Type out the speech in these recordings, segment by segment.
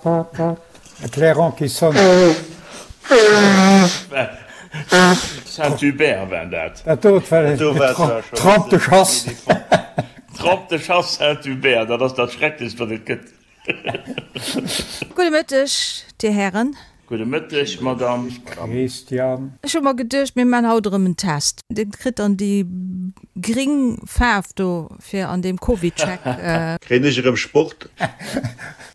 E Clairon qui sonne. Saint-Hubert war dat. Dat dot war Trompe de chasse. Trompe de chasse Saint-Hubert, dat ass dat Schrecklechst, wat et gëtt. Gudde Mëtteg, Dir Hären. Gudde Mëtteg, Madame. Christian. Ech hu mer geduecht, mir man haut erëm en Test. Dir kritt dann déi gring Faarf do fir an deem CovidCheck. Kréien ech erëm Sport?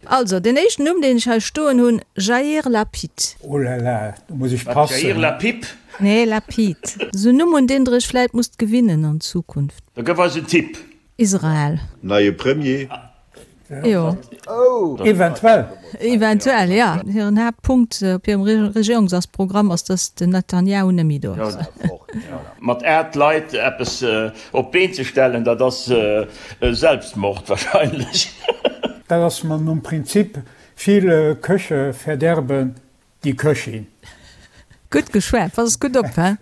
Also, deen éischten Numm, deen ech hei stoen hunn, Jair Lapid. Oh là là, do muss ech passen. Jair Lapip? Nee, Lapid. Esou en Numm, un deen Der Iech vläit musst gewinnen an Zukunft. Da gëff eis en Tipp. Israel. Neie Premier? Jo. Eventuell. Eventuell, jo. Hiren Haaptpunkt op hirem Regierungsasprogramm ass, datt den Netanjahu net méi do ass. Mat 8 Leit eppes op d'Been ze stellen, dat ass Selbstmord wahrscheinlech. Dat ass mer nom Prinzip, Viele Köche verderben die Köchin. Gutt geschwat, pass gutt op, he?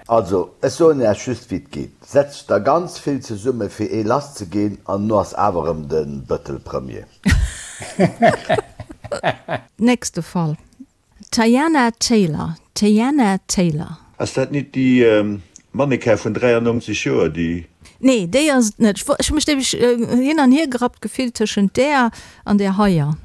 Also, ech soen Iech just wéi et geet, Setzt der ganz vill zesumme fir ee lass ze ginn an no ass awer erëm de Bëttel Premier. Nächste Fall, Teyana Taylor, Teyana Taylor. Ass dat nit déi Mannequin vun 93 Joer, déi. Nee, déi ass et net. Ech hu mech nämlech hin an hier gerappt gefillt tëschent där an där heier.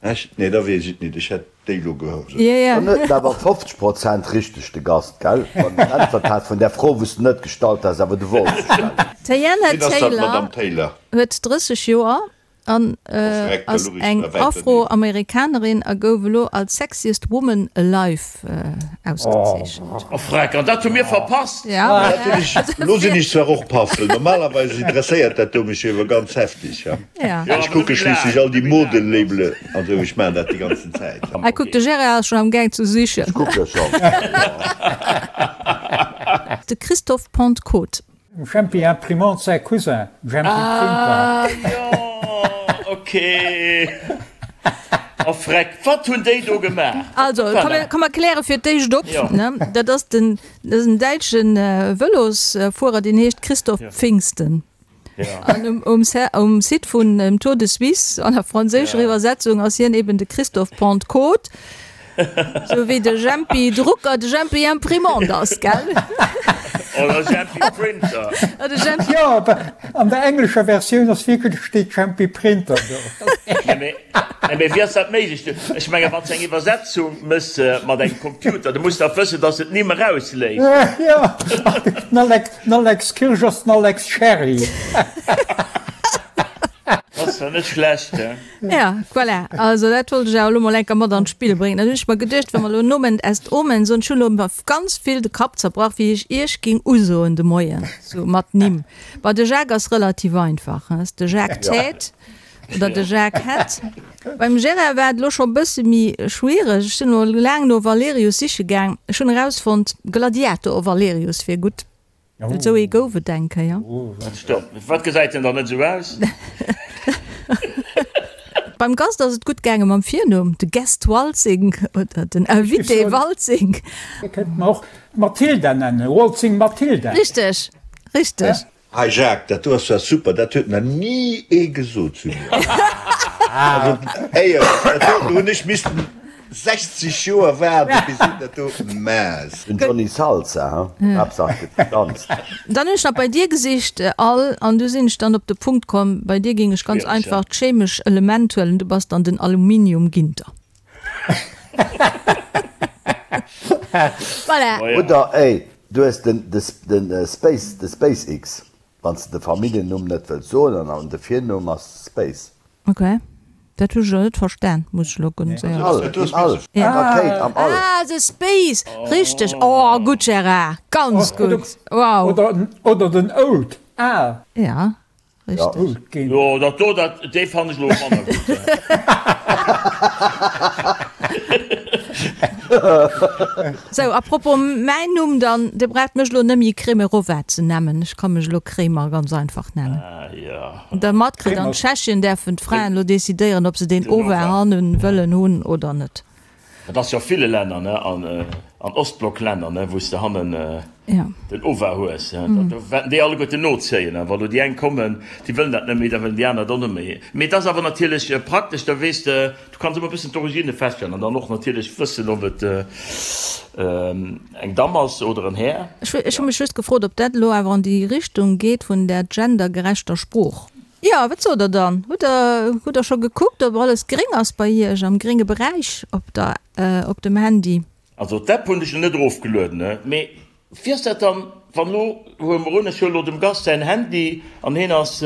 Echt? Nee, da weess ech et nit. Ech hätt déi lo geholl. Dann huet en awer 50 Prozent richteg, de Gast, gell? Wann en äntwert hat vun där Fro, wou s de net gestallt has, awer du wollts se stellen. D'Teyana Wien ass dat, d'Madame Taylor? Huet 30 Joer an ass eng Afroamerikanerin a gouf elo als Sexiest Woman Alive ausgezeechent. Oh freck, an dat hu mir verpasst! Ja. Dat hunn ech, lo sinn ech zwar och paff, well normalerweis interesséiert dat do mech jo iwwer ganz heftig. Ja. Ech kucke schliisslech all déi Modelabele an esou, ech maachen dat déi ganzen Zäit. Hei kuck, de Gérard ass schonn am Gaang ze sichen. Ech kucke schonn. De Christophe Pentecôte. Dem Jempi Imprimante säi Cousin, Jempi Printer. Ah jo, ok. Oh freck, wat hunn déi do gemaach? Also, komm mer kläre fir d'éischt op, ne? Dat ass den, dat ass en däitsche Vëlosfuerer, deen heescht Christoph Pfingsten. An um, um, um Site vun dem Tour de Suisse an der franséischer Iwwersetzung ass hien eben de Christophe Pentecôte. Sou wéi de Jempi Drucker de Jempi Imprimant ass, gell? Oder Jempi Printer. Oder Jempi. Jo, awer an der englescher Versioun ass wierklech, steet Jempi Printer do. Nee, mee, nee, mee wéi ass dat méiglech? Ech mengen, wann s de eng Iwwersetzung mëss mat engem Computer, du muss dach wëssen, dass se d'Nimm erausléisst. Jo, den Alex, den Alex Kirsch ass den Alex Sherry. Ass zwar net schlecht, he? Ja, voilà. Also dat wollt ech awer elo mol enker mat an d'Spill bréngen. Dann hunn ech mer geduecht, wa mer elo Nomen est Omen soen, ech hunn elo mer ganz vill de Kapp zerbrach, wéi ech Iech ging usoen de Moien, sou mat Nimm. Bon, de Jacques ass relativ einfach, he, ass de Jacques Tête oder de Jacques Hett. Beim Gérard war et elo scho bësse méi schwiereg. Ech sinn elo laang no Valerius siche gaang. Ech hunn erausfonnt, Gladiator Valerius wier gutt. Esou ee gouf et eng Kéier. Wat gesäit en dann net esou aus? Beim Gast ass et gutt gaange mam Virnumm, de Guest Waltzing oder den Invité Waltzing. Dir kënnt mer och Mathilda nennen, Waltzing Mathilda. Richteg, richteg. Hei Jacques, dat do ass zwar super, dat huet nach ni ee gesot zu mir. Also éierlech, dat do hunn ech missten 60 Joer waarden, bis een dat do mass. Den Johnny Salsa, he? Haaptsaach et gëtt gedanzt. Dann hunn ech nach bei dir gesicht, Al, an du sinn ech dann op de Punkt komm, bei dir géing ech ganz einfach d'chemesch Element huelen, du bass dann den Aluminium Ginter. Voilà. Oder ey, du hues den den Space, de SpaceX, wann s de de Familljennumm net wëlls soen an de Virnumm ass Space. Ok, dat hu ech elo net verstan, muss ech elo ganz éierlech All, soen. im All, eng Rakéit am All. Ah, the Space, richteg. Oh, gutt Gérard, ganz gutt, wow. Oder den Old, al. Ja, richteg. Jo, dat do, dat, dee fannen ech elo manner gutt. Sou, à propos mäin Numm dann, Dir braucht mech elo net méi Kremerova ze nemmen, ech ka mech elo Kremer ganz einfach nennen. Ah jo. Der matkritt, an Tschechien däerfen d'Fraen elo decidéieren, ob se deen Ova hannen wëllen hunn oder net. Dat ass jo a ville Länner, ne? An Ostblocklänner, ne, wou s de hannen den Ova hues, do wäerten déi alleguerten nozéien. A wa lo déi eng kommen, déi wëllen dat net méi, da wëllen déi aner et och net méi. Mee et ass awer natierlech praktesch, da weess de, du kanns ëmmer e bëssen d'Origine feststellen an dann och natierlech wëssen, ob et eng Damm ass oder en Här. Ech hu mech just gefrot, ob dat elo awer an déi Richtung geet vun där gendergerechter Sprooch. Jo, wat sot der dann? Hutt der, hutt der scho gekuckt, ob alles gréng ass bei Iech am grénge Beräich op der, op dem Handy? Also d'App hunn ech lo net erofgelueden, mee wéi ass dat dann, wann lo, huele mer un, ech huele lo dem Gast säin Handy an heen ass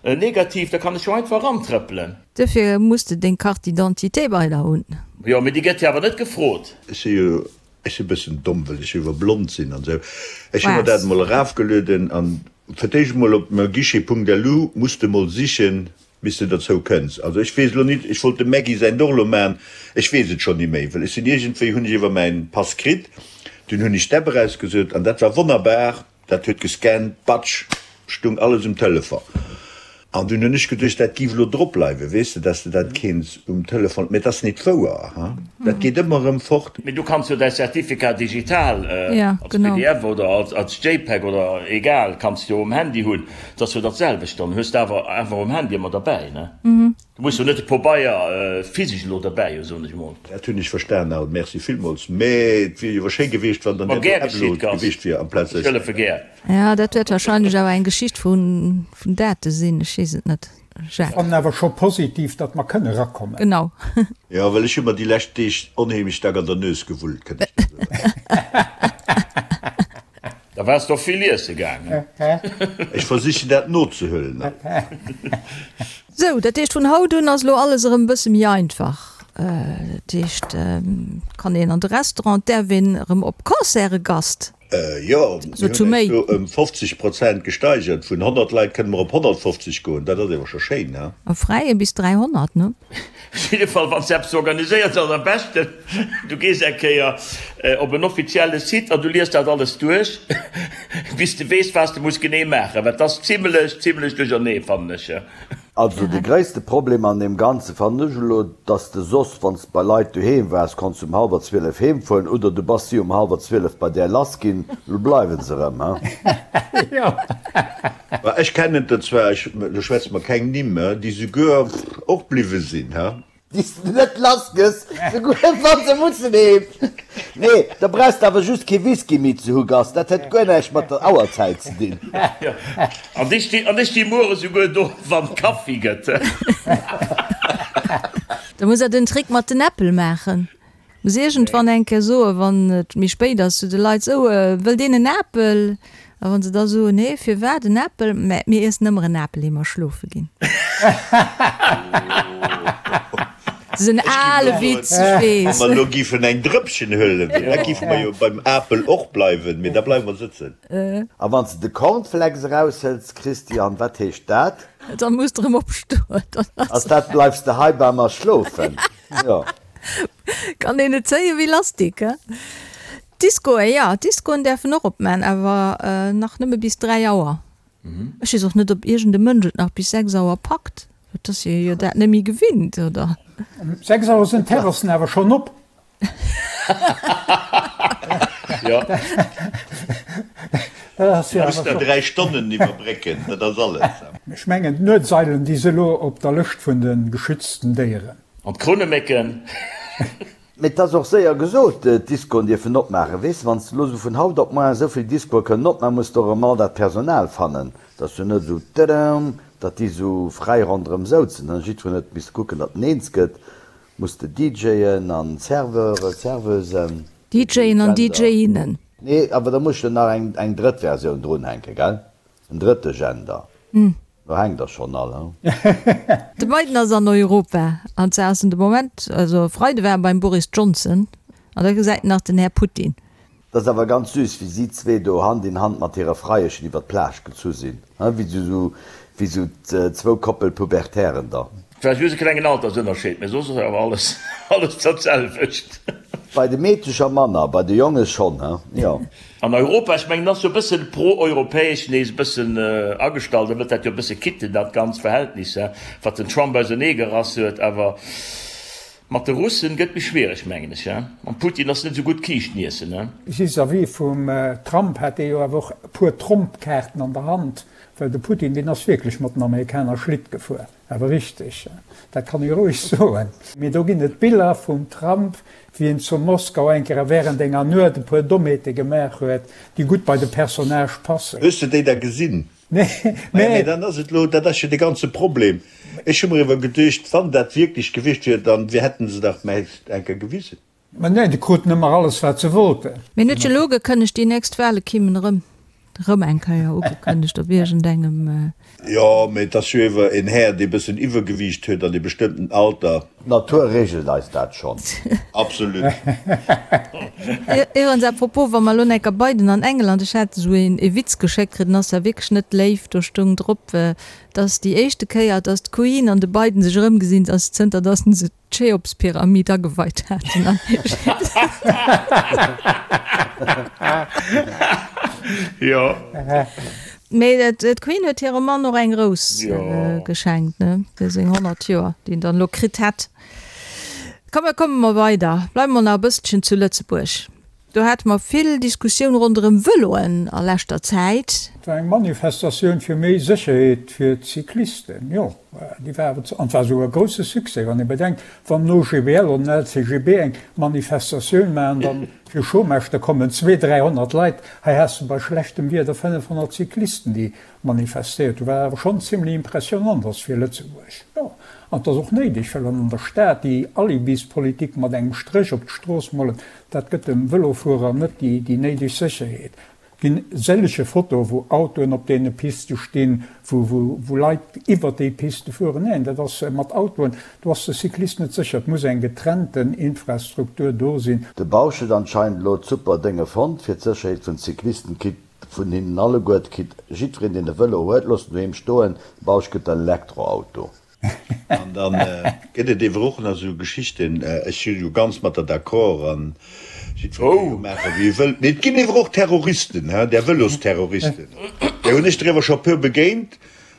negativ, da kann ech jo einfach erantrëppelen. Duerfir muss de deng Carte d'identité bei der hunn. Jo, mee déi gëtt jo awer net gefrot. Ech si jo, ech si bëssen domm, well ech iwwer blond sinn an esou. Ech hu mer dat emol erafgelueden an fir d'éischt emol op meuguichet.lu muss de mol sichen, Bis de derzou kënns. Also ech weess elo nit, ech wollt dem Maggy säin och elo man, ech weess et schonn ni méi, well ech sinn iergendwéi, hunn ech iwwer mäin Pass kritt, dunn hunn ech d'App erausgesuet an dat war wonnerbar, dat huet gescannt, batsch, stung alles um Telefon. An dunn hunn ech geduecht, dat giff elo drop bleiwen, weess de, dass de dat kéints um Telefon, mä et ass nit wouer, ha, dat geet ëmmer erëm fort. Mee du kanns jo däi Certificat digital als pdf oder als JPEG oder egal, kanns de jo um Handy hunn. Et ass jo dat selwecht dann, hues de awer einfach um Handy ëmmer derbäi, ne? Du muss jo net de Pobeier physesch elo derbäi hu, soen ech emol. Dat hunn ech verstan Al, merci villmools, mä et wier jo awer schéi gewiescht, wann dann Ma dat gär do geschitt, Upload Gast, gewiescht wier amplaz ech hëllefe gär. Ja, dat wäert wahrscheinlech awer eng Geschicht vun Date sinn, ech weess et net, Jacques. Fannen awer scho positiv, datt mer kënne rakommen. Genau. Jo, well ech hu mer déi lescht Deeg onheemlech staark an der Nues gewullt, kënnt ech der soen. Da waars de och vill iesse gaangen. Ech versichen dat nozehuelen. Sou, dat heescht vun haut un ass elo alles erëm e bësse méi einfach. Dat heescht, et kann een an de Restaurant, et däerf een erëm op Concerte, Gast. Jo, mir hunn eis do ëm 50 Prozent gesteigert. Vun 100 Leit kënne mer op 150 goen. Dat ass awer scho schéin, he? Am Fräie bis 300, ne? Op jidde Fall, wann s de eppes organiséiers, ass am beschten, du gees eng Kéier op en offizielle Site an du liest dat alles duerch, bis de weess, wat s de muss genee maachen, well et ass zimlech, zimlech duerchernee, fannen ech. Also de gréisste Problem an deem Ganze fannen ech elo, dass de soss, wann s de bei Leit doheem waars, konns du um hallwer 12 heem fueren oder du bass si um hallwer 12 bei där lass ginn. Elo bleiwen se erëm, he? Ma ech kennen der zwar, ech, elo schwätze mer keng Nimm, déi souguer och bliwwe sinn, he? Déi s de net lass gëss, souguer wa se mussen heem. Nee, da brauchs de awer just kee Whisky méi ze hu, Gast, dat huet guer näischt mat der Auerzäit ze dinn. Jo, an ech sti, an ech sti muere souguer do, wann Kaffi gëtt. Da muss der den Trick mat den Äppel maachen. Muss iergendwann eng Kéier soen, wann et méi spéit ass, zu de Leit, Sou, wëllt een en Apel? A wa se da soen, Nee, firwat en Apel? Mä mir iessen ëmmer en Apel, ier mer schlofe ginn. Dat ass en ale Witz, ech weess. Wa mer elo giffen eng Drëppchen huelen, da giffe mer jo beim Apel och bleiwen, mee da bleiwe mer sëtzen. A wann s de de Cornflakes eraushëls, Christian, wat heescht dat? Da muss de erëm opstoen. Ass dat, Bleifs de hei bei mer schlofen? Jo. Kann een et zéien wéi Lastik, he? D'Discoen, jo, d'Discoen däerfen och opman, awer nach nëmme bis 3 Auer. Ech weess och net, ob iergend e Mënsch et nach bis 6 Auer packt. Et ass ee jo dat net méi gewinnt, oder? Um 6 Auer sinn d'Terrassen awer schonn op. Jo. Dat ass jo Muss awer der scho. 3 Stonnen iwwerbrécken, dat ass alles. Ech mengen, d'Nuetseilen, déi si elo op der Lëscht vun de geschützten Déieren. An d'Krounemécken. Mee 't ass och séier gesot, d'Discoen dierfen opmaachen. Weess de, wann s de elo esou vun haut op moar esou vill Discoe kënnen opmaachen, muss de och erëm all dat Personal fannen. 't ass jo net esou tëdëm, datt déi esou fräi ronderëm souzen. Dann jiddwereen huet misste kucken, datt en eens gëtt. Muss de DJen an Serveure, Serveusen. DJen an DJinnen. Nee, awer da muss ech jo nach eng drëtt Versioun drunhänken, gell? En drëtte Gender. Do hänkt der schonn all, he? De Biden ass an Europa, an zwar ass en de Moment, also e Freide war e beim Boris Johnson, an da gesäit en nach den Här Putin. Dat ass awer ganz süß, wéi si zwee do Hand in Hand mat hire Freieschen iwwer d'Plage gezu sinn, he? Wéi sou, wéi sou zwou Koppel Pubertären da. Vläicht just e klengen Altersënnerscheed, mee soss ass awer alles, alles dat selwecht. Bei de Meedecher manner, bei de Jonge schonn, he? Jo. An Europa, ech mengen, ass jo e bëssen pro-europäesch nees e bëssen agestallt, e wëllt dat jo e bësse kitten, dat ganz Verhältnis, wat den Trump auserneegerass huet. Awer. Mat de Russen gëtt méi schwiereg, mengen ech, he? Mam Putin ass net esou gutt Kiischten iessen, he? Vis-à-vis vum Trump hat dee jo awer och e puer Trompkaarten an der Hand, well de Putin, deen ass wierklech mat den Amerikaner Schlitt gefuer, awer richteg, dat kann ee roueg soen. Mee do ginn et Biller vum Trump, wéi en zu Moskau eng Kéier während enger Nuet e puer Dommheete gemaach huet, déi gutt bei de Personnage passen. Hues de déi da gesinn? Nee, Maja, mee dann ass et elo, dat ass jo de ganze Problem. Ech hu mer iwwer geduecht, wann dat wierklech gewiescht wier, dann wir hätten se dach mäist eng Kéier gewisen. Mä nee, déi kruten ëmmer alles, wat se wollten. Mee en huet jo elo ugekënnegt, déi nächst Wahle kimmen erëm, erëm eng Kéier ugekënnegt op iergendengem. Jo, mee et ass jo ewer en Här, dee bëssen Iwwergewiicht huet an e bestëmmten Alter. D'Natur regelt eis dat schonn. Absolut. Iwwerens, à propos, wa mer elo enker Biden an England, ech hat esou een ee Witz geschéckt kritt, den ass zwar wierklech net léif, do stoung drop, dass déi éischte Kéier, dass d'Queen an de Biden sech erëmgesinn, ass zënter dass se d'Cheopspyramid ageweit haten an Ägypten. Jo. Mee d'Queen huet hirem Mann och eng Rous geschenkt, ne, fir seng 100 Joer, déi en dann elo kritt hätt. Komm, mir komme mer weider, bleiwe mer nach e bësselchen zu Lëtzebuerg. Do hate mer vill Diskussioun ronderëm Vëloen a leschter Zäit. Et war eng Manifestatioun fir méi Sécherheet fir d'Cyclisten, jo, déi war awer, an et war esouguer e grousse Succès, wann ee bedenkt, wann den OGBL oder den LCGB eng Manifestatioun maachen, dann fir Chômage, da kommen 200, 300 Leit. Hei has de bei schlechtem Wieder 500 Cyclisten, déi manifestéiert hunn, wat awer schonn zimlech impressionant ass fir Lëtzebuerg, jo. An et ass och néideg, well an der Stad déi Alibispolitik mat engem Stréch op d'Strooss molen, Dat gëtt dem Vëlofuerer net déi néideg Sécherheet. Et ginn sëllege Fotoe wou Autoen op deene Piste stinn, wou Leit iwwert déi Piste fueren. Neen, dat ass mat Autoen, do ass de Cyclist net sécher. Et muss eng getrennten Infrastruktur do sinn. De Bausch huet anscheinend elo d'super Dénge fonnt fir d'Sécherheet vun Cyclisten, kritt vun hinnen alleguer, kritt jiddwereen deen e Vëlo huet, looss en doheem stoen, de Bausch gëtt en Elektroauto. An da gëtt et ewer och nach esou Geschichten, ech si jo ganz mat der d'accord an jiddweree ka jo maachen, wéi e wëllt, mee et ginn ewer och Terroristen, hein, där Vëlosterroristen, där hunn ech der ewer scho e puer begéint,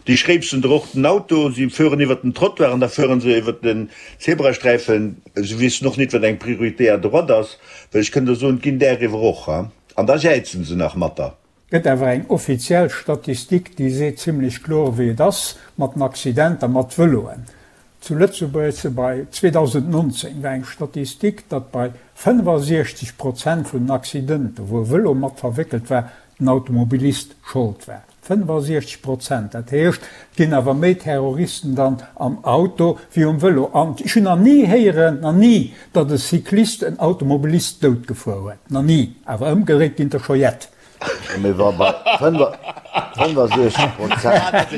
déi schréipsen der och den Auto, si fueren iwwert den Trottoir an da fueren se iwwert den Zebrasträifen, se wissen och nit, wat eng Priorité à droite ass, well ech kënn der soen, et ginn där ewer och, hein, an da jäizen se nach mat der. Gëtt awer eng offiziell Statistik, déi seet zimlech kloer wéi et ass mat den Accidenter mat Vëloen. Zu Lëtzebuerg se bei 2019 war eng Statistik, datt bei 65 Prozent vun den Accidenter, wou e Vëlo mat verwéckelt war, den Automobilist Schold war. 65 Prozent! Dat heescht, et ginn awer méi Terroristen dann am Auto wéi um Vëlo. An ech hunn nach ni héieren, nach ni, datt e Cyclist en Automobilist dout gefuer huet. Nach ni! Awer ëmgedréit ginn der scho jett. Mee wa bei 65 Prozent,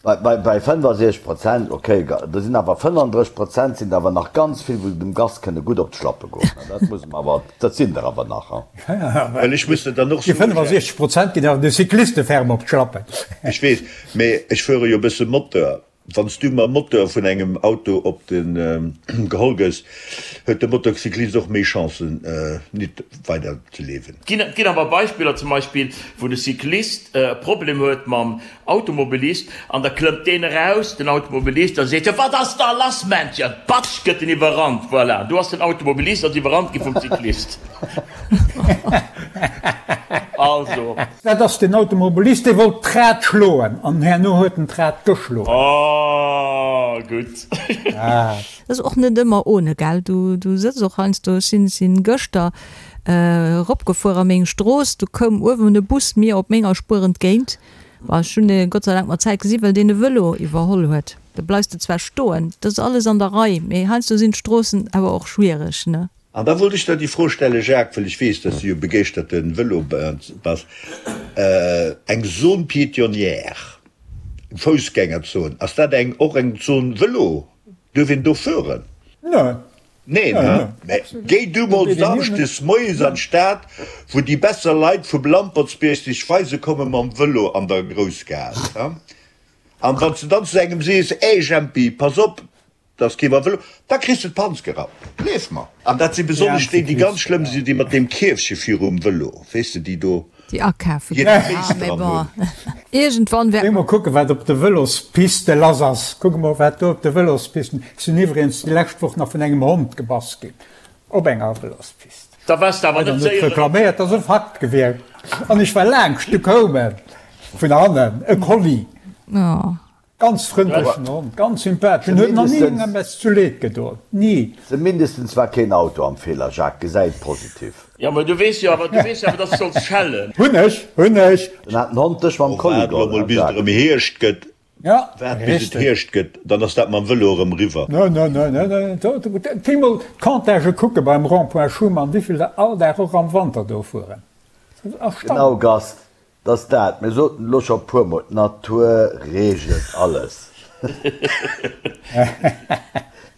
bei 65 Prozent, okay, do sinn awer 35 Prozent sinn der awer nach ganz vill, wou dem Gast kënne gutt op d'Schlappe goen. Dat muss mer awer, dat sinn der awer nach. Well ech muss der dann och Déi soen, 65 Prozent ginn awer de Cycliste ferm op d'Schlappen. Ech weess, mee ech fuere jo e bësse Moteur. Wann s du mam Moteur vun engem Auto op de geholl gëss, huet de Motocyclist och méi Chancen nit weider ze liewen. Et ginn awer Beispiller, zum Beispill wou de Cyclist e Problem huet mam Automobilist an da klëmmt deen eraus, den Automobilist, a seet, Jo wat ass da lass Männchen? Patsch gëtt en iwwerrannt. Voilà, do ass den Automobilist ass iwwerrannt gi vum Cyclist. Also. Dat ass den Automobilist, dee wollt d'Rad schloen an herno huet en d'Rad geschloen. Oh, gutt. Dat ass och net ëmmer ohne, gell? Du, du sëtz och heiansdo, ech sinn, sinn gëschter eropgefuer a meng Strooss, du koum uewen e Bus mir op menger Spuer entgéint. Bon, ech hunn e Gott sei Dank mat Zäit gesi well deen e Vëlo iwwerholl huet. Da bleifs de zwar stoen, dat ass alles an der Rei, mee heiansdo sinn d'Stroossen awer och schwiereg, ne? An da wollt ech der déi Fro stellen, Jacques, well ech weess, dass du jo begeeschterte Vëlo bass, Eng Zone piétonnière, eng Foussgängerzon, ass dat eng och eng Zone Vëlo? Duerf een do fueren? Neen. Neen, he? Mä géi du mol samschdes moies an d'Stad, wou déi besser Leit vum Lampertsbierg sech weise komme mam Vëlo an der Groussgaass, he? An wann s de dann zu engem sees, Ey Jempi, pass op, Dass kee mam Vëlo, da kriss de d'Panz gerappt, gleef mer. An dat si besonnesch déi, déi ganz schlëmm sinn, déi mat deem Kierfche virum Vëlo, weess de, déi do. Déi akafe ginn. Ah, mee bon, iergendwann wäert. Géi mol kucken, wat op de Vëlospiste lass ass. Kuck emol, wat do op de Vëlospisten. Ech sinn iwwregens déi lescht Woch nach vun engem Hond gebass ginn op enger Vëlospist. Da waars de awer net séier. Net reklaméiert, dat ass e Fakt gewiescht. An ech war laangscht, du koum e vun hannen, e Collie. Ganz frëndlechen Hond, ganz sympathesch, en huet nach ni engem eppes zu Leed gedoen, ni. Zumindestens war keen Auto am Feeler, Jacques, gesäi et positiv. Jo, mä du weess jo awer, du weess jo awer, dass du solls schellen. Hunn ech, hunn ech. Dann hat den Hond dech mam Oh, Kolli waart elo geholl, mol hein bis et Jacques? erëm Hierscht gëtt, Ja, waart bis et richteg. Hierscht gëtt, dann ass dat mam Vëlo erëm eriwwer. No, no, no, no, no, do, do, géi mol d'Comptagë kucke beim Rond-point Schuman, wéivill der all Dag och am Wanter do fueren. Dat ass Genau, erstaunlech. Gast, 't ass dat, mir soten elo scho puer mol, d'Natur reegelt alles.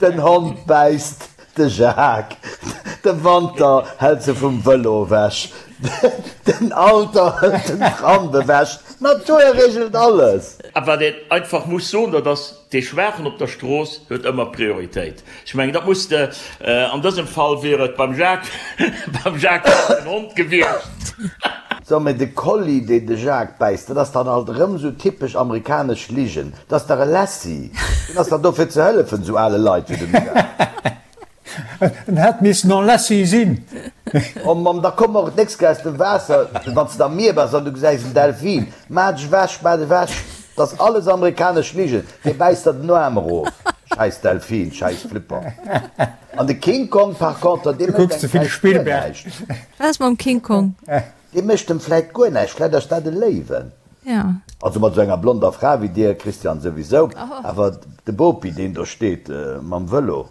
Den Hond bäisst de Jacques, de Wanter hält se vum Vëlo ewech, den Alter hëlt den Tram ewech, d'Natur reegelt alles. A wat een einfach muss soen, dat ass, Dee Schwaachen op der Strooss huet ëmmer Prioritéit. Ech mengen, dat muss de, an dësem Fall wier et beim Jacques, beim Jacques wier et den Hond gewiescht. So, mee de Collie, deen de Jacques bäisst, dat ass dann alt erëm esou typesch amerikanesch Ligen. Dat ass dach e Lassie. Deen ass dach do fir ze hëllefen, esou ale Leit wéi dem Jacques. En hätt missen en Lassie sinn. Oh Mamm, da komm och d'nächst Kéier aus dem Waasser, wann s de am Mier bass an du gesäis en Delfin. Maach dech ewech, maach dech ewech. Dat ass alles amerikanesch Ligen. Dee bäisst der den Aarm erof. Schäiss Delfin, schäiss Flipper. An de King Kong par contre, dee Du mécht kucks ze engem vill vläicht guer Spielberg. näischt. Wat ass mam King Kong? Dee mécht em vläicht guer näischt, vläicht ass dat e Léiwen. Ja. Also mat esou enger blonder Fra wéi dir, Christian, souwisou, awer de Bopi, deen do steet mam Vëlo.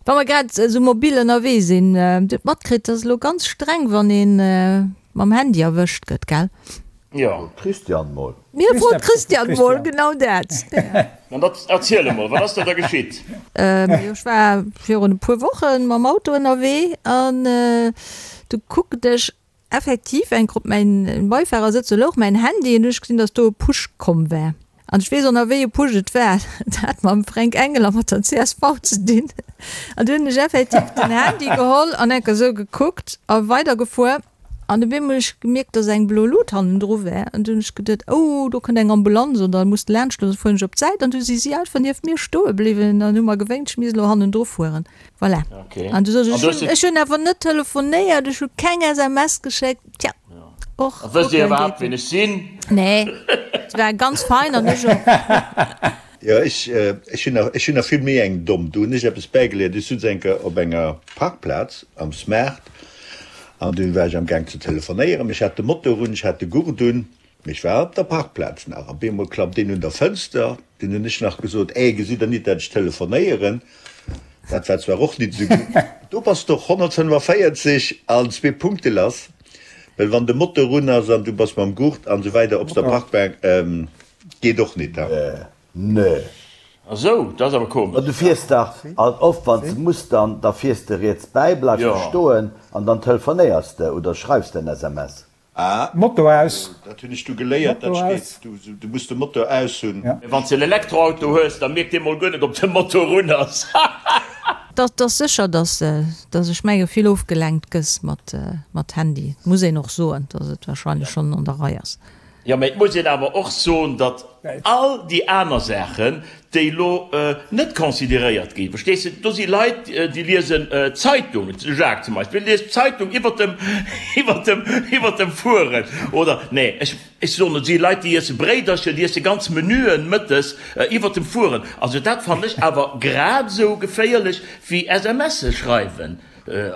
Wa mer grad esou mobil ënnerwee sinn, Dir hutt matkritt, et ass elo ganz streng, wann ee mam Handy erwëscht gëtt, gell? Jo. Frot d'Christiane mol. Mir frot d'Christiane mol, genau dat. Dann erziel emol, wat ass da da geschitt? Jo, ech war virun e puer Woche mam Auto ënnerwee an du kuckt ech Effektiv, eng Grupp, mäin Beifahrersëtz, do louch mäin Handy an du hunn ech gesinn, dass do e Push komm war. An ech weess och nach wéi e Push et war, et hat mam Fränk Engel a mat der csv ze dinn. An du hunn ech effektiv den Handy geholl an enker esou gekuckt a weidergefuer. An op eemol hunn ech gemierkt, dass eng blo Lut hannendru war. An du hunn ech geduet, oh do kënnt eng Ambulanz oder muss laanscht, da fueren ech op d'Säit. An du si si einfach nieft mir stoe bliwwen an hu mer gewénkt, ech misst elo hannendru fueren. Voilà. Okay. An du soss, An ech du hues hunn, ech hunn awer net telefonéiert, ech hu keng SMS geschéckt. Tja, och A wësst Dir kucken iwwerhaapt, geet wien net. ech sinn? Nee, et war ganz fein an ech och. Jo, ech, ech hunn nach, ech hunn nach vill méi eng domm. Do hunn ech eppes bäigeléiert. Ech sutz eng Kéier op enger Parkplaz am Smart an dunn war ech am Gaang ze telefonéieren. Ech hat de Motor un, ech hat de Gurt un. Mee ech war op der Parkplaz nach. Op eemol klappt een un der Fënster. Dunn hunn ech nach gesot, Ey, gesitt Der nit, dat ech telefonéieren? Dat war zwar och nit esou gutt. Do bass de och 145 an zwee Punkte lass, well wann de Motor un ass an du bass mam Gurt an esou weider op der Parkbank, geet och nit. Nee. A sou, dat ass awer Ma komesch. du fiers dach alt oft, wann s de muss, dann da fiers de riets bäi, bleifs de stoen an dann telefonéiers de oder schreifs de en SMS. Ah, Motor aus. Dat hunn ech du geléiert, dat Motor steet, aus. du, du muss de Motor aus hunn. Ja. Mee wann s de en Elektroauto hues, da mierkt dee mol guer net ob de Motor un ass. Dat ass sécher, dass, dass ech menge vill ofgelenkt gëss mat, mat Handy. Muss een och soen, dass et wahrscheinlech schonn an der Rei ass. Jo, mee et muss een awer och soen, datt all déi aner Saachen, déi elo net consideréiert ginn, verstees de, do si Leit, déi liesen d'Zeitung, de Jacques zum Beispill liest d'Zeitung iwwert dem, iwwert dem, iwwert dem Fueren, oder, nee, ech, ech soen, et si Leit, déi iesse Bréidercher, déi iesse ganz Menüen mëttes iwwert dem Fueren. Also dat fannen ech awer grad esou geféierlech wéi SMSe schreiwen.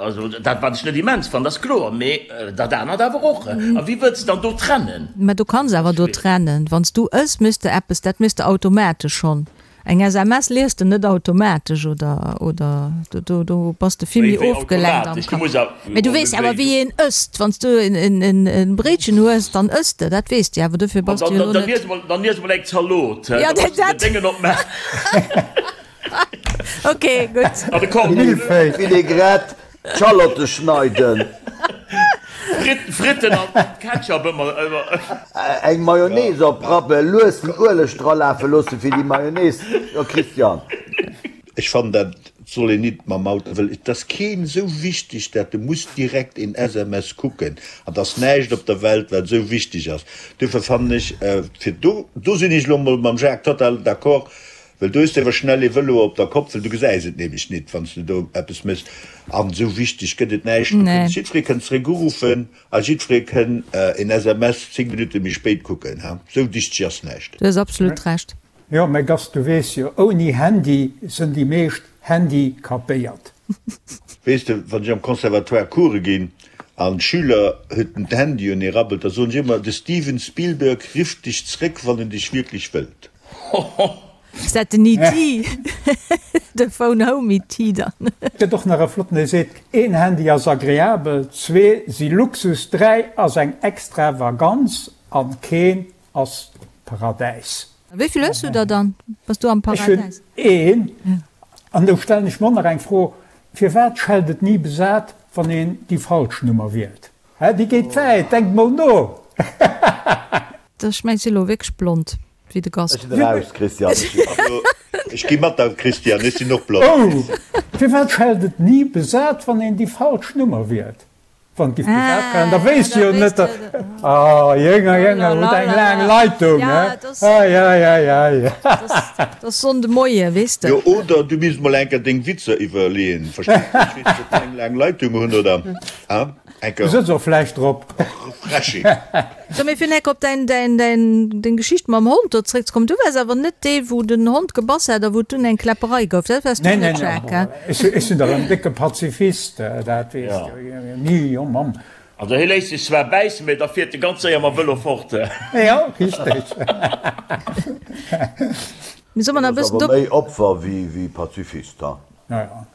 Also dat wat ech net immens fannen, ass kloer, mee dat anert awer och. A wéi wëlls de dann do trennen? Mä du kanns awer do trennen. Wann s du ëss, méchs de eppes, dat méchs de automatesch schonn. Eng SMS liest de net automatesch oder, oder do, do bass de vill méi ofgelenkt am Kapp. Mee du weess awer wéi een ësst. Wann s du e Bréitchen hues, dann ëss de, dat weess de awer. Dofir bass du jo elo net. Dann iess emol eng Zalot, da muss de den Déngen opmaachen. Ok, gutt. An de Cordon bleu. Vinaigrette, d'Schallotte schneiden. Fritten an Ketchup ëmmer. Eng Mayonnaise oprappen, lues den Ueleg dralafe loossen fir déi Mayonnaise. Jo Christian. Ech fannen dat. Et soll een nit mam Auto, well et ass keen esou wichteg, dat de muss direkt een SMS kucken. An et ass näischt op der Welt, wat esou wichteg ass. Duerfir fannen ech, fir do, do sinn ech elo emol mam Jacques total d'accord, well do hues de awer schnell ee Vëlo op der Kopp, well du gesäis et nämlech nit, wann s de do eppes méchs. An esou wichteg gëtt et näischt. Du kënns, jiddweree kënnt zeréck uruffen a jiddweree kënn een SMS 10 Minutte méi spéit kucken. Esou wichteg ass näischt. Du hues absolut Recht. Jo, mä Gast, du weess jo, ouni Handy sënn déi meescht handicapéiert. Weess de, wann ech am Conservatoire Coure ginn an d'Schüler huet den Handy un, ee rabbelt, da soen ech ëmmer, de Steven Spielberg rifft dech zréck, wann en dech wierklech wëllt. Ass dat den ET? De Phone Home ET dann? Gëtt och nach e flotten, dee seet, een Handy ass agreabel, zwee si Luxus, dräi ass eng Extravaganz an keen ass d'Paradäis. Wéi vill hues du der dann? Bass du am Paradäis? Ech hunn een. An do stellen ech mer och nach eng Fro, Firwat schellt et ni besat, wann een déi falsch Nummer wielt? Hä, déi geet wäit, denkt mol no! Ech mengen, ech si lo wierklech blond wéi de Gast. Ech sinn eraus, Christian. Ech gi mat der, Christian, ech sinn och blond. Oh! Firwat schellt et ni besat, wann een déi falsch Nummer wielt? Wann giff besat waren, da wéisst jo net der. Ah Jénger, Jénger, huet eng laang Leitung, he? Ei, ei, ei, ei. Dat ass Sonnde Moie, weess de. Jo, oder du misst mol enker deng Witzer iwwerleeën, verstees de? Ech weess net, ob déi eng laang Leitung hunn oder, ha? Enker. Du sëtz och vläicht drop. Refreshing. So, mee fir enk op däin, däin, däin, deng Geschicht mam Hond do zréckzekommen, du waars awer net dee wou den Hond gebass hat a wou et dunn eng Kläpperei gouf, dat waars du Nee, net, nee, nee, Jacques, he? ech, ech sinn dach en décke Pazifist, dat weess de jo. Ni, oh Mamm. Also hie léisst sech zwar bäissen, mee da fiert e ganz séier mam Vëlo fort. Jo, richteg. Mee soll mer nach e Du bass bëssen awer do. méi Opfer wéi Pazifist, ha? Ja, ja.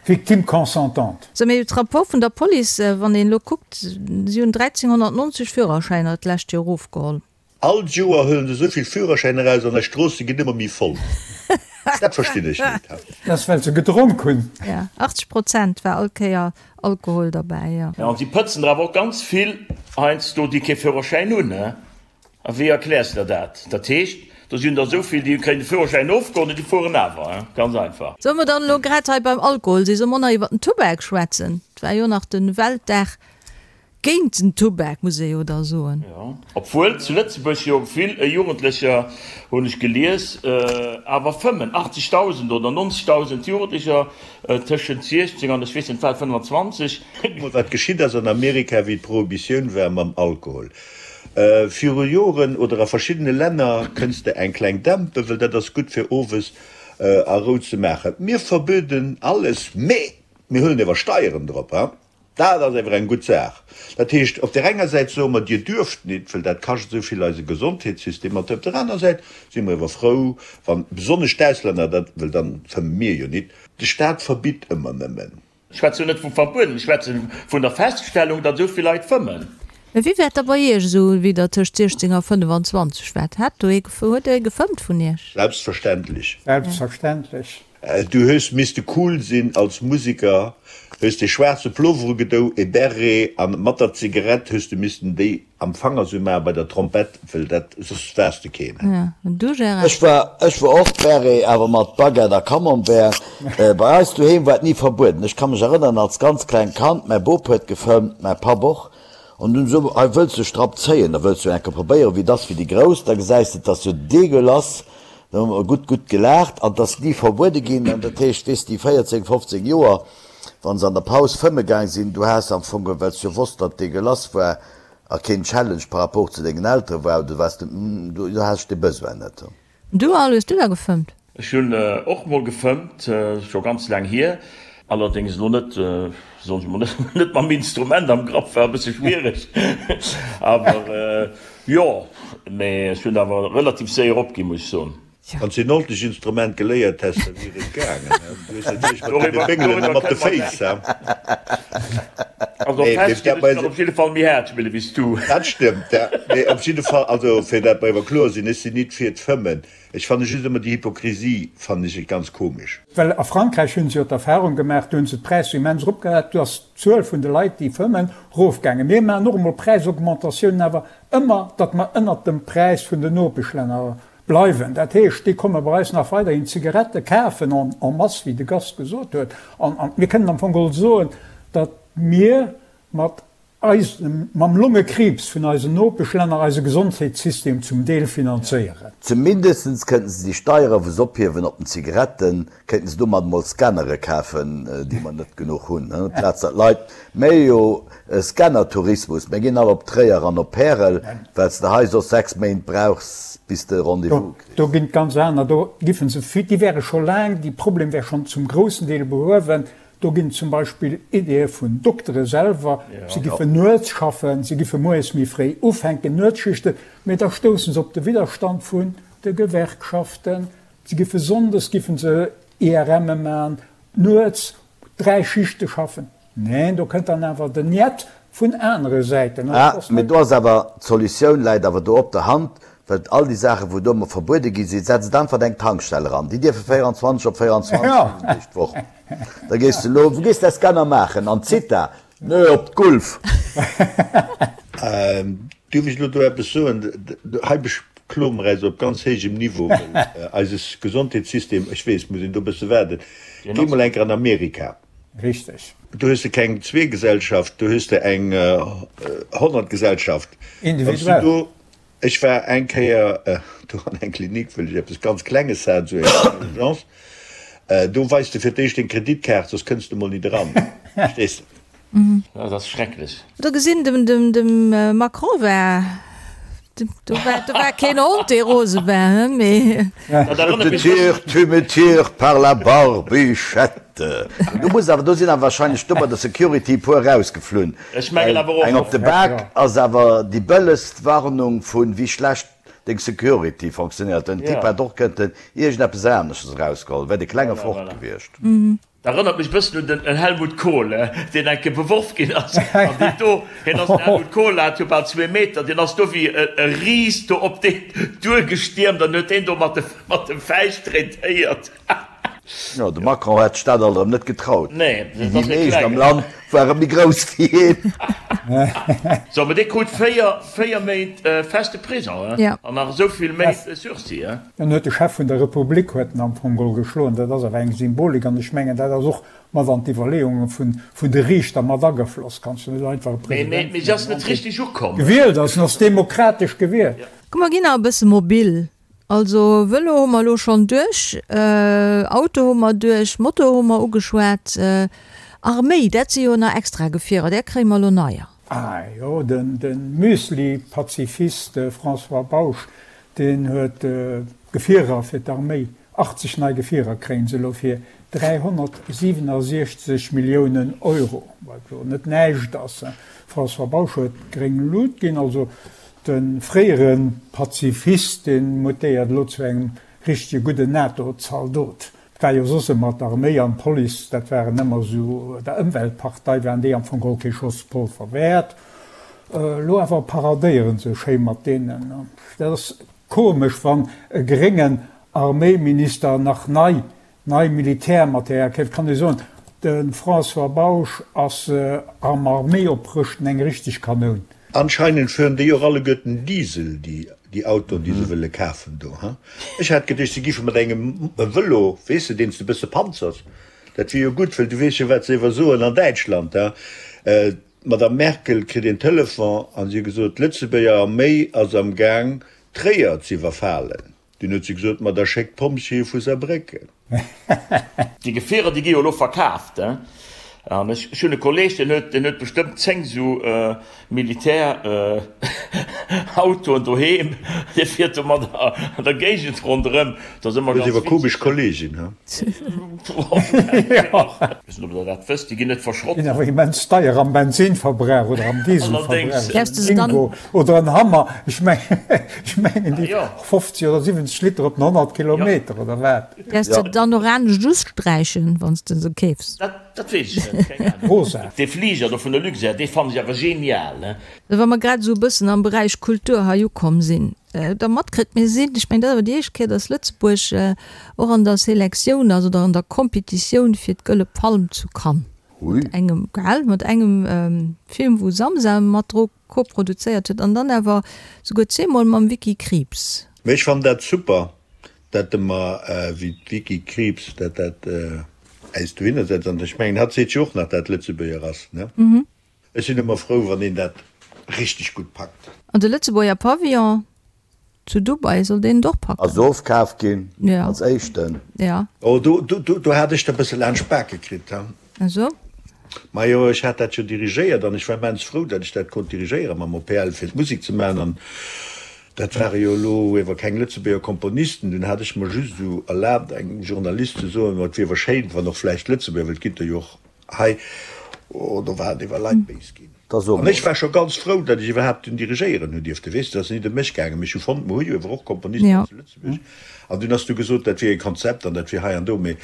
Victime consentante. Sou, mee d'Rapport vun der Police, wann een elo kuckt, si hunn 1.390 Führerschäiner d'lescht Joer erofgeholl. All Joer huelen se esou vill Führerschäiner eraus an eis Stroosse ginn ëmmer méi voll. Dat verstinn ech net. Dat ass well se gedronk hunn. Jo, 80 Prozent war all Kéier Alkohol derbäi, jo. Jo, an si pëtzen der awer och ganz vill heiansdo, déi kee Führerschäin hunn. A wéi erkläers de der dat? Dat heescht, do sinn der esou vill, déi kréien de Führerschäin ofgeholl an déi fueren awer. Ganz einfach. Solle mer dann elo grad hei beim Alkohol sinn, solle mer och nach iwwer den Tubak schwätzen? Et war jo nach de Weltdag géint den Tubak, muss ee jo da soen. Jo, obwuel zu Lëtzebuerg jo vill Jugendlecher, hunn ech gelies, awer fëmmen. 80.000 oder 90.000 Jugendlecher tëschent 16 an ech weess net wat, 25. Kuck mol wat geschitt ass an Amerika wéi d'Prohibitioun war mam Alkohol. Viru Joren oder a verschiddene Länner kënns de eng kleng dämpen, well dat ass gutt fir owes a Rou ze maachen. Mir verböden alles, mee mir huelen ewer Steieren drop. Dat ass ewer eng gutt Saach. Dat heescht, op där enger Säit soe mer, Dir duerft nit, well dat kascht esou vill eise Gesondheetssystem. An op der aner Säit si mer ewer frou, wann besonnesch d'Auslänner dat, well dann fëmme mir jo nit. De Staat verbitt ëmmer nëmmen. Ech schwätze jo net vu verbueden, ech schwätze vun der Feststellung, datt esou vill Leit fëmmen. Mä wéi war et da bei Iech esou, wéi Der tëscht 16 a 25 waart? Hat do ee, huet ee gefëmmt vun Iech? Selbstverständlech. Selbstverständlech. Du hues misste cool sinn als Musiker, hues dee schwaarze Plover ugedou, e Beret an mat der Zigarett hues du missten déi Am Fanger sou mar bei der Trompett, well dat, soss waars de keen. Ja, an du Gérard? Ech war, ech war och Beret, awer mat Baguette a Camembert. Bei eis doheem war et ni verbueden. Ech ka mech erënneren, als ganz klengt Kand, mäi Bop huet gefëmmt, mäi Papp och, an dunn sou, hei wëlls de Strapp zéien, da wëlls du enke probéieren, wéi et ass fir déi Grouss, da gesäis de, et ass jo degueulass. Da hu mer gutt, gutt gelaacht an et ass ni verbuede ginn. An dat heescht, weess déi 14, 15 Joer, Wann se an der Paus fëmme gaang sinn, du has am Fong, well s jo wosst, datt degueulass war a keen Challenge par rapport zu dengen Eltere war, du waars net, du has dee Besoin net. Du Al, hues du da gefëmmt? Ech hunn och mol gefëmmt, scho ganz laang hier, allerdéngs elo net, soen ech mol, net mam Instrument am Grapp, war e bësse schwiereg, awer jo, mee ech hunn awer relativ séier opginn, muss ech soen. Wann s de en ordentlecht Instrument geléiert häss, da wier et gaangen. Du hues natierlech mat deene Béngelen a mat de Féiss, he? Also fest ginn ech kann op jidde Fall méi haart spille wéi s du. Dat stëmmt, ja. Mee op jidde Fall, also fir dat mer ewer kloer sinn, ech sinn nit fir d'Fëmmen. Ech fanne just ëmmer déi Hypokrisie fannen ech ganz komesch. Well a Frankräich hu se jo d'Erfahrung gemaach, do hu se d'Präisser immens eropgehat, do ass d'Zuel vun de Leit, déi fëmmen, erofgaangen. Mir maachen och emol Präisaugmentatiounen, awer ëmmer, datt mer ënnert dem Präis vun den Nopeschlänner. Bleiwen. Dat heescht, déi komme bei eis nach weiderhin Zigarette kafen en en masse, wéi de Gast gesot huet. An an mir kënnen am Fong geholl soen, datt mir mat eisem, mam Longekriibs vun eisen Nopeschlänner eise Gesondheetssystem zum Deel finanzéieren. Zumindestens kënnten se déi Steiere wou se ophiewen op den Zigaretten, Kéinten se domat mol Scannere kafen, déi mer net genuch hunn, amplaz datt Leit, méi jo Scanner-Tourismus, mir ginn all op Tréier an op Pärel, well s de hei soss 6 Méint brauchs, bis de e Rendez-vous kriss. Do ginn et ganz aner, do giffen se, déi wäre scho laang, déi Problem wär schonn zum groussen Deel behuewen. Do ginn et zum Beispill Ideeë vun Doktere selwer, se giffen nuets schaffen, se giffe moies méi fréi ufänken, Nuetsschichten, mee da stousse se op de Widderstand vun de Gewerkschaften. Se giffe sonndes giffen se IRMe man, nuets 3 Schichte schaffen. Neen, do kënnt dann awer den Njet vun anere Säiten. Ah, mee do ass awer, d'Solutioun läit awer do op der Hand, well all déi Saachen, wou do ëmmer verbuede gi sinn, setzt einfach eng Tankstell eran, déi dierfe 24 op 24, 7 Deeg d'Woch. Da gees de elo, wou gees de däi Scanner maachen? An d'Zitha? Nö, op d'Gulf. Duerf ech elo do eppes soen? Hei bekloe mer eis op ganz héijem Niveau, well eise Gesondheetssystem, ech weess, muss een do e bësse waarden. Géi mol eng Kéier an Amerika. Richteg. Do hues de keng Zweegesellschaft, do hues de eng Honnertgesellschaft. Individuell. Ech war eng Kéier do an eng Klinik, wëll ech eppes ganz Klenges hat, esou eng Urgence. Do weis de fir d'éischt deng Kreditkaart, soss kënns de mol nit eran. Verstees de? Dat ass schrecklech. Do gesinn, dem, dem, dem Macron war, do war, do war keen Hond, dee rose war, he, mee. Dat erënnert Je mech te tire, bëssen. tu me tires par la barbichette. Do muss awer, do sinn awer wahrscheinlech do bei der Security e puer erausgeflunn. Ech mengen Well awer och. eng op de Bak ass awer déi bëllegst Warnung vu wéi schlecht deng Security fonctionnéiert. Den Typ hätt och kënnten iergendeppes anesches erausgeholl, wär de Klenge fort gewiescht. Dat erënnert mech e bëssen un den Helmut Kohl, deen eng Kéier beworf ginn ass. An deen do, hien ass, den Helmut Kohl hat jo bal zwee Meter, deen ass do wéi e Ris do op deen duergestiermt an huet deen do mat de, mat de Fäischt traitéiert. Jo, de Macron hätt sech dat alt erëm net getraut. Nee, Déi dat ass e meescht am Klengen. Land ware méi grouss wéi hien. So, mä dee krut 4, 4 Méint feste Prison, Ja. an nach esou vill Méint Sursis. Dann huet de Chef vun der Republik huet en am Fong geholl geschloen. Dat ass awer eng Symbolik an ech mengen, dat ass och mat an d'Iwwerleeunge vun vun de Riichter mat agefloss. Kanns du net einfach e President Mee vun si ass engem net Land, dee richteg ukomm. gewielt ass, en ass demokratesch gewielt. Komm mer ginn nach e bësse mobil. Also Vëlo hu mer elo schonn duerch, Auto hu mer duerch, Moto hu mer ugeschwat, Arméi, dat si jo nach extra Gefierer, där kréie mer elo neier. Ah jo, de Müsli-Pazifist François Bausch, deen huet Gefierer fir d'Arméi, 80 nei Gefierer kréien se elo fir 367 Milliounen Euro, wat jo net näischt ass. François Bausch huet gréng Lut ginn, also de fréiere Pazifist, dee mutéiert elo zu engem richtege gudden NATO-Zaldot. Et war jo soss ëmmer d'Arméi an d'Police, dat waren ëmmer esou, der Ëmweltpartei waren déi am Fong geholl kee Schoss Polver wäert. Elo awer paradéieren se schéi mat deenen. Dat ass komesch, wann e gréngen Arméiminister nach nei nei Militärmaterial keeft. Kann ee soen, de François Bausch ass am Arméioprëschten eng richteg Kanoun. Anscheinend fueren déi och alleguerten Diesel, déi Autoen, déi se wëlle kafen do, ha? Ech hat geduecht, se giffe mat engem Vëlo, weess de, deen s de e bësse panzers. Dat wier jo gutt, well du weess jo, wat se iwwer soen an Däitschland, ha? D'Madame Merkel kritt een Telefon an si huet gesot, d'Lëtzebuerger Arméi ass am Gaang, Tréier z'iwwerfalen. Dunn huet se gesot, Ma da schéckt d'Pompjeeë vu Saarbrécken. Déi Gefierer, déi gi jo elo verkaaft, hein. An ech hunn e Kolleg, deen huet, deen huet bestëmmt 10 esou Militärautoen doheem. Dee fiert domadder an der Géigend ronderëm. Dat ass ëmmer Hues ganz ewer komesch witzeg. Kolleegen, hein? Weess net, ob Der dat wësst, déi ginn net verschrott. Ginn awer immens deier am Bensinverbrauch oder am Dieselverbrauch. Däerfs de se dann. Ingo oder en Hammer, ech mengen déi 50 oder 70 Liter op den 100 Kilometer oder wat. Däerfs de dann och anescht usträichen, wann s de se keefs? Dat weess ech net, keng Ahnung. Rosa. Dee Fliger do vun der Luxair, dee fannen ech awer genial, ne? Wa mer grad esou e bëssen am Beräich Kultur hei ukomm sinn, da matkritt, mir sinn, ech mengen, dat ass awer déi éischt Kéier, dass Lëtzebuerg och an der Selektioun ass oder an der Kompetitioun fir d'Gëlle Palm zu Cannes. Mat engem, gell, mat engem Film, wou Samsa mat dru koproduzéiert huet an dann awer souguer zweemol mam Vicky Krieps. Mee ech fannen dat super, dat de mer wéi d'Vicky Krieps dat dat äis dohinner setzt. An ech mengen, hatt seet jo och nach, dat Lëtzebuerger ass, ne? Ech sinn ëmmer frou, wann een dat richteg gutt packt. An de Lëtzebuerger Pavillon zu Dubai, soll deen et och packen? Ass ofkaf ginn als éischten. Jo. Oh, do, do, do hat ech der bësse laanscht d'Bake kritt, he? Esou? Majo, ech hat dat jo dirigéiert an ech war immens frou, datt ech dat konnt dirigéieren mam OPL, fir d'Musek ze maachen. An dat ware jo elo ewer keng Lëtzebuerger Komponisten. Dunn hat ech mer just esou erlaabt, engem Journalist ze soen, ma et wier ewer schéin, wann och vläicht Lëtzebuerger, well et ginn der jo och hei, oh, do waren ewer Leit béis ginn. Da so An ech mol. war scho ganz frou, datt ech iwwerhaapt dunn dirigéieren hunn dierften. Weess de, et ass nit ëm mech gaangen, mee ech hu fonnt, mer hu jo ewer och Komponisten hei zu Lëtzebuerg. An dunn ass du gesot, dat wier e Konzept an dat wier hei an do. Mee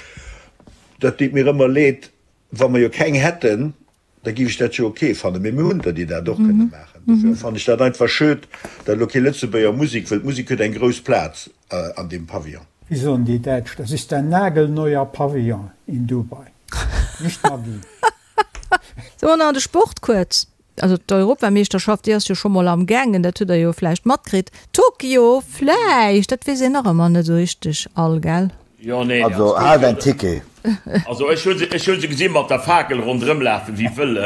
dat deet mir ëmmer leed, wa mer jo keng hätten, da géif ech dat jo ok fannen. Mee mir hunn der, déi dat och kënne maachen. Dofir fannen ech dat einfach schued, datt elo kee Lëtzebuerger Musek, wëll d'Musek huet eng grouss Plaz an deem Pavillon. Wéi soen déi Däitsch, das ist ein nagelneuer Pavillon in Dubai, nicht Maggi. Sou, an de Sport kuerz. Also d'Europameeschterschaft, déi ass jo scho mol am gaangen, dat hutt der jo vläicht matkritt. Tokio vläicht, dat weess een nach ëmmer net esou richteg all, gell? Jo, nee, Also haalt en Ticket. Also ech hu se, ech hu se gesi mat der Fakel ronderëm lafen wéi wëll.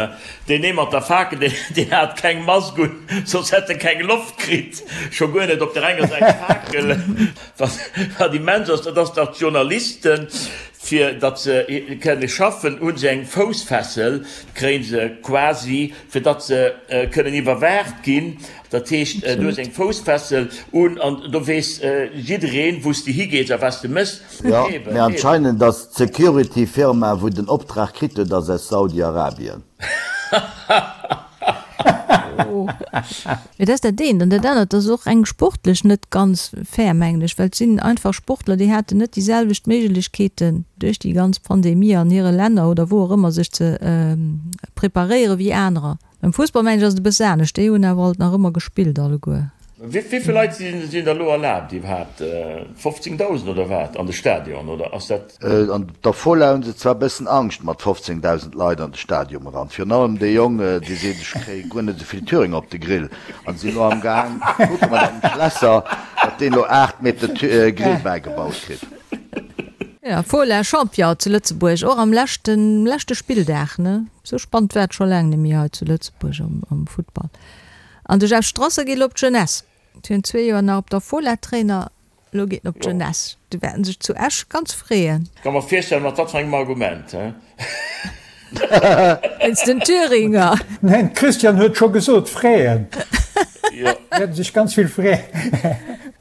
Deen ee mat der Fakel, deen, deen hat keng Mask un, soss hätt e keng Loft kritt, scho guer net op der enger Säit d'Fakel. Wat, wat immens ass, dat ass, datt d'Journalisten, Fir datt se kënne schaffen, hu se eng Foussfessel, kréie se quasi, fir datt se kënnen iwwerwaacht ginn. Dat heescht, du hues eng Foussfessel un an do weess jiddereen, wou s de higees a wat s de méchs. Jo, mee anscheinend ass d'Security-Firma, wou den Optrag kritt huet, ass aus Saudi-Arabien. Mee dat ass dat eent. An dat anert ass och eng sportlech net ganz fair, mengen ech, well et sinn einfach Sportler, déi haten net déi selwecht Méiglechkeeten duerch déi ganz Pandemie an hire Länner oder wou och ëmmer sech ze preparéiere wéi anerer. Beim Fussball mengen ech ass et e bësse anescht, déi hunn awer alt nach ëmmer gespillt alleguer. Wéi vill Leit sinn da elo erlaabt iwwerhaapt? 15.000 oder wat an de Stadion oder ass dat? An der Fola hunn se zwar bëssen Angscht mat 15.000 Leit an de Stadium eran. Virun allem dee Jong, dee seet, ech kréie guer net esou vill Thüringer op de Grill. An si elo am Gaang ze kucke mat engem Schlässer, datt deen elo 8 Meter Grill bäigebaut kritt. Jo, Fola Champion zu Lëtzebuerg, och am leschten leschte Spilldag, ne? Sou spannend war et scho laang net méi hei zu Lëtzebuerg am Futtball. An de Jeff Strasser geet elo op d'Jeunesse. Virun zwee Joer nach op der Fola Trainer, Elo geet en op d'Jeunesse. Déi wäerten sech zu Esch ganz freeën. Ka mer virstellen, mat wat fir engem Argument, he? Wéinst den Thüringer. Neen, d'Christiane huet scho gesot, freeën. Jo. Wäerten sech ganz vill freeën.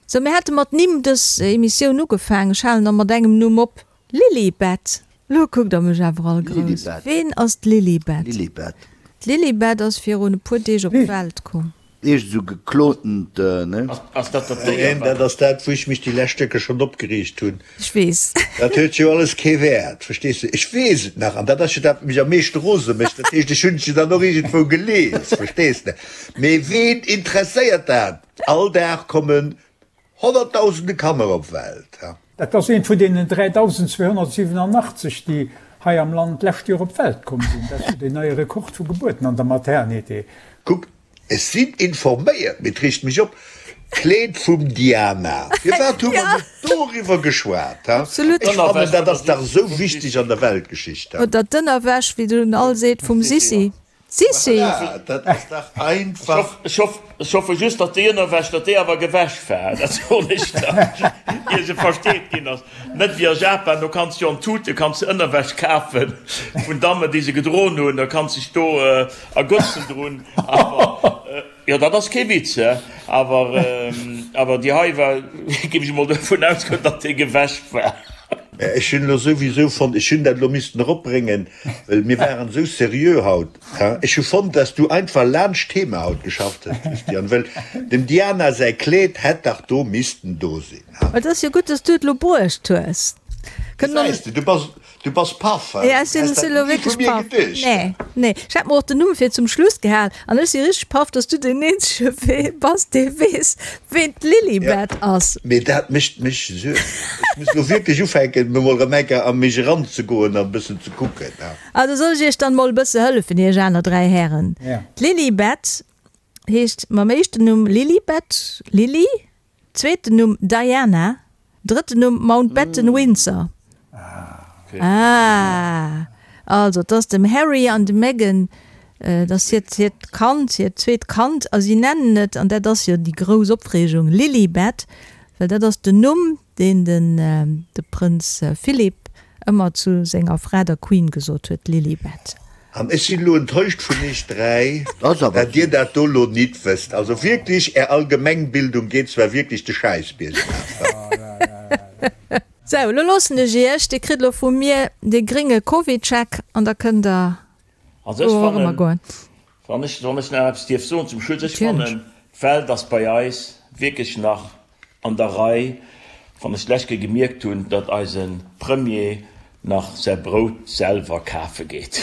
Sou, mir hate mat Nimm dës Emissioun ugefaangen. Ech halen da mat engem Numm op. Lilibet! Lo kuckt der mech awer all grouss. Ween ass d'Lilibet? Lilibet. D'Lilibet ass virun e puer Deeg op d'Welt komm. Eescht esou geklontent, ne? Ass dat dat Déier, Neen, wat. dat ass dat, wou ech mech déi lescht Stécker schonn opgereegt hunn. Ech weess. Dat huet jo alles kee Wäert, verstees de? Ech weess et nach, an dat ass jo dat, wat mech am meeschte rose mécht. Dat heescht, ech hunn et jo dann och iergendwou gelies, verstees de? Mee ween interesséiert dat? All Dag kommen Honnertdausende Kanner op d'Welt. Dat ass eent vun deenen 3.287, déi hei am Land d'lescht Joer op d'Welt komm sinn. Dat ass jo deen neie Rekord vu Gebuerten an der Maternité. Kuckt, ech sinn informéiert, mee et reegt mech op, Kleed vum Diana. Firwat hu mer net doriwwer geschwat? Ha? Absolut. Ech fannen, dat ass dach esou wichteg an der Weltgeschicht. Oder d'Ënnerwäsch, wéi den all seet, vum Sissi. Sissi! Voilà, dat ass dach einfach. Ech hoffe just, datt déi Ënnerwäsch, datt déi awer gewäsch war, dat soen ech der, ier se versteet ginn ass. Net wéi a Japan, do kanns de jo an Tute kanns de Ënnerwäsch kafe vun Dammen, déi se gedroen hunn, da kanns dech do ergötzen drun. Awer, jo, dat ass kee Witz, he, awer, awer déi hei war, géif ech emol dovun ausgoen, datt déi gewäsch war. Ech hunn elo souwisou fonnt, ech hunn dat elo missten eropbréngen, well mir waren esou seriö haut. Ech hu fonnt, dass du einfach laanscht d'Thema haut geschafft hues, Christian, well dem Diana säi Kleed hätt dach do missten do sinn. Et ass jo gutt, dass du et elo bruecht hues. Gesäis de, du bass Du bass paff, he? Ja, ech sinn Häss dat elo ni wierklech vu mir paff. geduecht? Nee, nee. Ech hat mer och den Numm fir zum Schluss gehal an ech si richteg paff, dass du deen eenzege wee bass, dee weess, ween d'Lilibet ass. Mee dat mécht mech Suergen. Ech muss elo wierklech ufänken, mir mol erëm eng Kéier a mech eranzegoen an e bëssen ze kucken, he? Also soll ech iech dann mol e bësse hëllefen, iech aner 3 Hären? Ja. D'Lilibet heescht mam éischten Numm Lilibet, Lili. Zweeten Numm, Diana. Drëtten Numm, Mountbatten-Windsor. Ah! Also, et ass dem Harry an dem Meghan, et ass hiert, hiert Kand, hiert zweet Kand, a si nennen et, an dat ass jo déi grouss Opreegung, Lilibet, well dat ass den Numm, deen den, de Prënz Philip ëmmer zu senger Fra, der Queen, gesot huet, Lilibet. An ech sinn elo enttäuscht vun iech 3, dat dir dat do lo nit wësst. Also wierklech, är Allgemengbildung geet zwar wierklech de Schäiss biergaf. Sou, lo loossen ech iech. Dir kritt lo vu mir de gringe Covidcheck an da kënnt der Also ech fannen, wann ech, wann ech nach eppes dierf soen zum Schluss, ech fannen, d'Welt ass bei eis wierklech nach an der Rei, wann ech d'lescht Kéier gemierkt hunn, datt eise Premier nach säi Brout selwer kafe geet.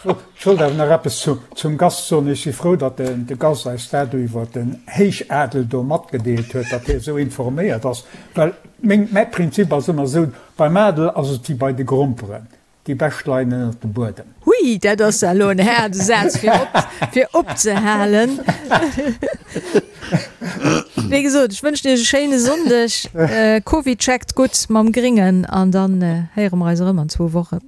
Ech wollt awer nach eppes zum Gast soen. Ech si frou, datt de Gast eis dat do iwwer den Héichadel do matgedeelt huet, datt hie esou informéiert ass. Well meng, mäi Prinzip ass ëmmer esou, Beim Adel ass et wéi bei de Gromperen, Déi bescht leien ënnert dem Buedem. Hui, dat ass elo en haarde Saz fir op, fir opzehalen. Wéi gesot, ech wënschen Iech e schéine Sonndeg. Covid checkt gutt mam Gringen an dann héiere mer eis erëm an zwou Wochen.